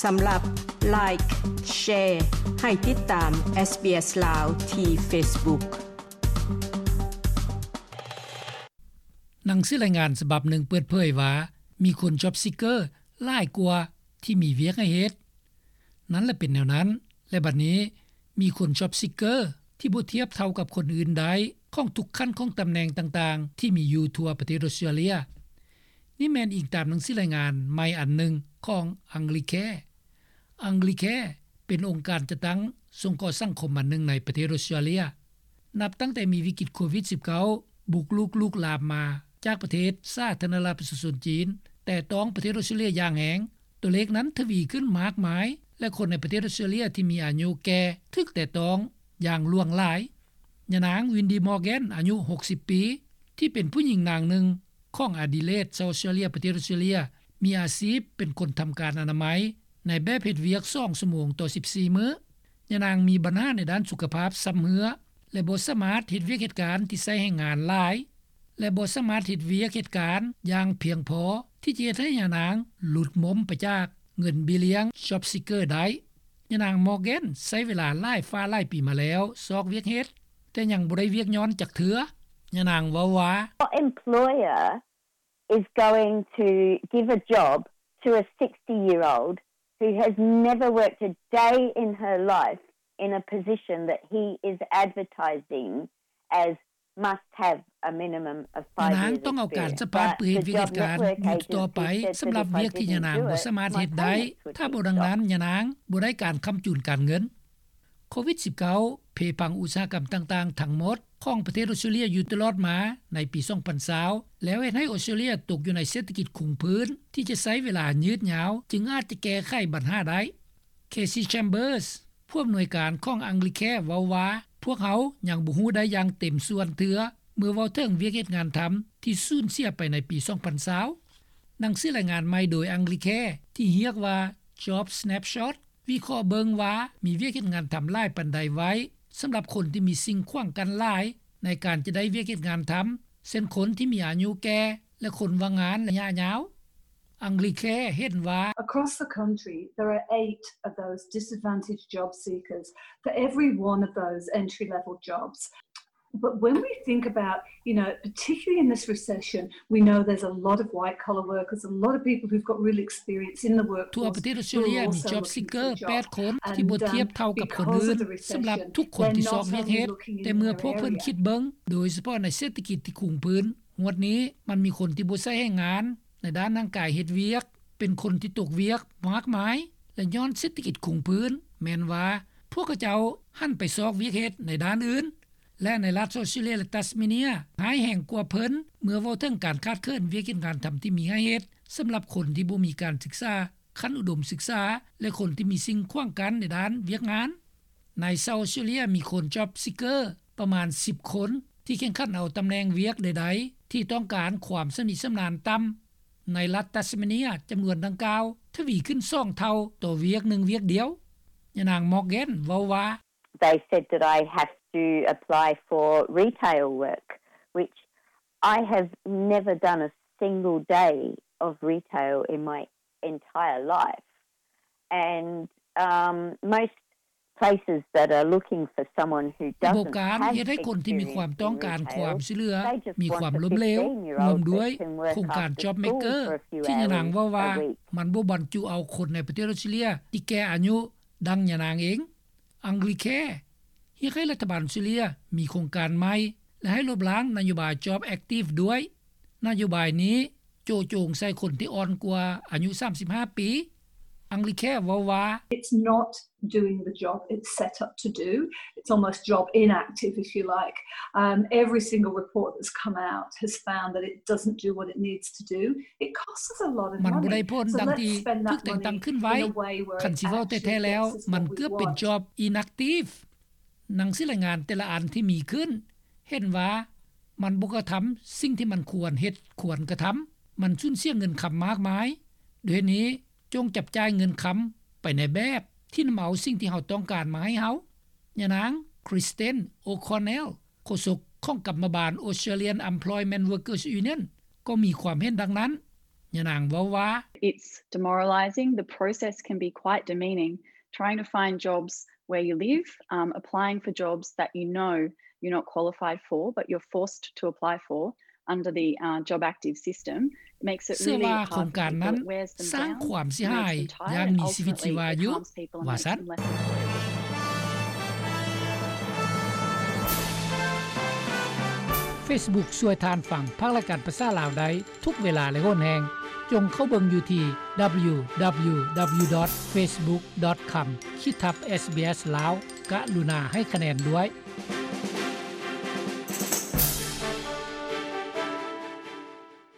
ສຳລັບ Like, Share ໃຫ້ຕິດຕາມ SBS ລາວ ທີ່ Facebook. ໜັງສືລາຍງານສະບັບໜຶ່ງເປີດເຜີຍວ່າ ມີຄົນ Job Seeker ຫຼາຍກວ່າທີ່ມີວຽກໃຫ້ເຮັດ. ນັ້ນລະເປັນແນວນັ້ນ ແລະ ບັດນີ້ມີຄົນ Job Seeker ທີ່ບໍ່ທຽບເທົ່າກັບຄົນອື່ນໄດ້ ຂອງທຸກຂັ້ນຂອງຕຳແໜ່ງຕ່າງໆ ທີ່ມີຢູ່ທົ່ວປະເທດອົດສະຕຣາເລຍ. ນີ້ແມ່ນອີງຕາມໜັງສືລາຍງານໃໝ່ອັນໜຶ່ງຂອງ Anglicare. Anglicare ເປັນອົງການຈັດຕັ້ງສົງເຄາະສັງຄົມອັນໜຶ່ງໃນປະເທດອົດສະຕຣາເລຍ. ນັບຕັ້ງແຕ່ມີວິກິດໂຄວິດສິບເກົ້າ ບຸກລຸກລຸກລາມມາຈາກປະເທດສາທາລະນະລັດປະຊາຊົນຈີນ ແຕະຕ້ອງປະເທດອົດສະຕຣາເລຍຢ່າງແຮງ, ຕົວເລກນັ້ນທະວີຂຶ້ນມາກມາຍ ແລະ ຄົນໃນປະເທດອົດສະຕຣາເລຍທີ່ມີອາຍຸແກ່ຖືກແຕະຕ້ອງຢ່າງຫຼວງຫຼາຍ. ຍານາງ Windy Morgan ອາຍຸຫົກສິບປີ ທີ່ເປັນຜູ້ຍິງນາງໜຶ່ງຂອງ Adelaide ຊາວອົດສະຕຣາເລຍ ປະເທດອົດສະຕຣາເລຍ ມີອາຊີບເປັນຄົນທຳການອະນາໄມໃນແບບເຮັດວຽກສອງຊົ່ວໂມງຕໍ່ສິບສີ່ມື້. ຍານາງມີບັນຫາໃນດ້ານສຸຂະພາບຊຳເຮື້ອ ແລະ ບໍ່ສາມາດເຮັດວຽກເຮັດການທີ່ໃຊ້ແຮງງານຫຼາຍ ແລະ ບໍ່ສາມາດເຮັດວຽກເຮັດການຢ່າງພຽງພໍທີ່ຈະເຮັດໃຫ້ຍານາງຫຼຸດໝົມໄປຈາກເງິນເບ້ຍລ້ຽງ Job Seeker ໄດ້. ຍານາງ Morgan ໃຊ້ເວລາຫຼາຍຟ້າຫຼາຍປີມາແລ້ວຊອກວຽກເຮັດ, ແຕ່ຍັງບໍ່ໄດ້ວຽກຍ້ອນຈັກເທື່ອ. ຍານາງເວົ້າວ່າ What employer is going to give a job to a sixty-year-old who has never worked a day in her life in a position that he is advertising as must have a minimum of five years experience? ຍານາງຕ້ອງເອົາການສະພາດເພື່ອເຮັດວຽກເຮັດການຢູ່ຕໍ່ໄປ ສຳລັບວຽກທີ່ຍານາງບໍ່ສາມາດເຮັດໄດ້. ຖ້າບໍ່ດັ່ງນັ້ນ ຍານາງບໍ່ໄດ້ການຄ້ຳຈູນການເງິນ. ໂຄວິດສິບເກົ້າ ເພພັງອຸດສາຫະກຳຕ່າງໆທັງໝົດຂອງປະເທດອົດສະຕຣາເລຍຢູ່ຕະຫຼອດມາໃນປີສອງພັນຊາວ ແລ້ວເຮັດໃຫ້ອົດສະຕຣາເລຍຕົກຢູ່ໃນເສດຖະກິດຄົງພື້ນທີ່ຈະໃຊ້ເວລາຍືດຍາວ ຈຶ່ງອາດຈະແກ້ໄຂບັນຫາໄດ້. Casey Chambers ຜູ້ອຳນວຍການຂອງ Anglicare ເວົ້າວ່າ ພວກເຮົາຍັງບໍ່ຮູ້ໄດ້ຢ່າງເຕັມສ່ວນເທື່ອ ເມື່ອເວົ້າເຖິງວຽກເຮັດງານທຳທີ່ສູນເສຍໄປໃນປີສອງພັນຊາວ. ໜັງສືລາຍງານໃໝ່ໂດຍ Anglicare ທີ່ຮຽກວ່າ Job Snapshot ວິເຄາະເບິ່ງວ່າມີວຽກເຮັດງານທຳຫຼາຍປານໃດໄວ້ ສຳລັບຄົນທີ່ມີສິ່ງຂວາງກັ້ນຫຼາຍໃນການຈະໄດ້ວຽກເຮັດງານທຳ ເຊັ່ນ ຄົນທີ່ມີອາຍຸແກ່ ແລະ ຄົນວ່າງງານໄລຍະຍາວ. Anglicare ເຫັນວ່າ Across the country, there are eight of those disadvantaged job seekers for every one of those entry-level jobs. But when we think about, you know, particularly in this recession, we know there's a lot of white-collar workers, a lot of people who've got real experience in the workforce. ທົ່ວປະເທດອົດສະຕຣາເລຍມີ Job Seeker ແປດຄົນທີ່ບໍ່ທຽບເທົ່າກັບຄົນອື່ນ. ສຳລັບທຸກຄົນທີ່ຊອກວຽກເຮັດ, ແຕ່ເມື່ອພວກເພິ່ນຄິດເບິ່ງ ໂດຍສະເພາະໃນເສດຖະກິດທີ່ຄຸງພື້ນ, ງວດນີ້ມັນມີຄົນທີ່ບໍ່ໃຊ້ແຮງງານໃນດ້ານຮ່າງກາຍເຮັດວຽກ, ເປັນຄົນທີ່ຕົກວຽກມາກມາຍ ແລະ ຍ້ອນເສດຖະກິດຄຸງພື້ນ, ແມ່ນວ່າພວກເຂົາເຈົ້າຫັນໄປຊອກວຽກເຮັດໃນດ້ານອື່ນ. ແລະ ໃນລັດອອສເຕຣເລຍ ແລະ ຕັສເມເນຍ ຮ້າຍແຮງກວ່າເພິ່ນ ເມື່ອເວົ້າເຖິງການຂາດເຂີນວຽກເຮັດງານທຳທີ່ມີໃຫ້ເຮັດ ສຳລັບຄົນທີ່ບໍ່ມີການສຶກສາຂັ້ນອຸດົມສຶກສາ ແລະ ຄົນທີ່ມີສິ່ງຂວາງກັ້ນໃນດ້ານວຽກງານ. ໃນຊາວອອສເຕຣເລຍ ມີຄົນ Job Seeker ປະມານສິບຄົນ ທີ່ແຂ່ງຂັນເອົາຕຳແໜ່ງວຽກໃດໆ ທີ່ຕ້ອງການຄວາມຊຳນິຊຳນານຕ່ຳ. ໃນລັດຕັສເມເນຍ ຈຳນວນດັ່ງກ່າວທະວີຂຶ້ນສອງເທົ່າຕໍ່ວຽກໜຶ່ງວຽກດຽວ. ຍານາງ Morgan ເວົ້າວ່າ They said that I have to apply for retail work, which I have never done a single day of retail in my entire life. And, um, most places that are looking for someone who doesn't have experience in retail, they just want a fifteen-year-old person to work after school for a few hours a week. ໂດຍການເຮັດໃຫ້ຄົນທີ່ມີຄວາມຕ້ອງການຄວາມຊ່ວຍເຫຼືອມີຄວາມລົ້ມເຫຼວ ຮ່ວມດ້ວຍໂຄງການ Job Maker ທີ່ຍານາງເວົ້າວ່າ ມັນບໍ່ບັນຈຸເອົາຄົນໃນປະເທດອົດສະຕຣາເລຍທີ່ແກ່ອາຍຸ ດັ່ງຍານາງເອງ. Anglicare ຮຽກໃຫ້ລັດຖະບານອົດສະຕຣາເລຍມີໂຄງການໃໝ່ ແລະ ໃຫ້ລົບລ້າງນະໂຍບາຍ Job Active ດ້ວຍ. ນະໂຍບາຍນີ້ໂຈະໂຈງໃສ່ຄົນທີ່ອ່ອນກວ່າອາຍຸສາມສິບຫ້າປີ. Anglicare ເວົ້າວ່າ It's not doing the job it's set up to do. It's almost job inactive, if you like. Um, every single report that's come out has found that it doesn't do what it needs to do. It costs us a lot of money. ມັນບໍ່ໄດ້ຜົນດັ່ງທີ່ຖືກແຕ່ງຕັ້ງຂຶ້ນໄວ້. ຄັນຊິເວົ້າແທ້ໆແລ້ວ ມັນເກືອບເປັນ job inactive. ໜັງສືລາຍງານແຕ່ລະອັນທີ່ມີຂຶ້ນ ເຫັນວ່າມັນບໍ່ກະທຳສິ່ງທີ່ມັນຄວນເຮັດຄວນກະທຳ. ມັນສູນເສຍເງິນຄຳມາກມາຍ. ດ້ວຍເຫດນີ້ ຈົ່ງຈັບຈ່າຍເງິນຄຳໄປໃນແບບທີ່ນຳເອົາສິ່ງທີ່ເຮົາຕ້ອງການມາໃຫ້ເຮົາ. ຍານາງ Kristen O'Connell ໂຄສົກຂອງກຳມະບານ Australian Employment Workers Union ກໍມີຄວາມເຫັນດັ່ງນັ້ນ. ຍານາງເວົ້າວ່າ it's demoralizing. The process can be quite demeaning. Trying to find jobs where you live, um, applying for jobs that you know you're not qualified for, but you're forced to apply for under the uh, Job Active system, makes it ເຊື່ອວ່າ really ໂຄງການນັ້ນ hard for people. It wears them ສ້າງ down, ຄວາມເສຍຫາຍ removes them tired, ຢ່າງມີຊີວິດຊີວາຢູ່ ultimately it harms people and ວ່າຊັ້ນ makes them less employable. Facebook ຊ່ວຍທ່ານຟັງພາກລາຍການພາສາລາວໄດ້ທຸກເວລາ ແລະ ໂຫນແຮງ. ຈົ່ງເຂົ້າເບິ່ງຢູ່ທີ່ www.facebook.com/sbslao. ກະລຸນາໃຫ້ຄະແນນດ້ວຍ.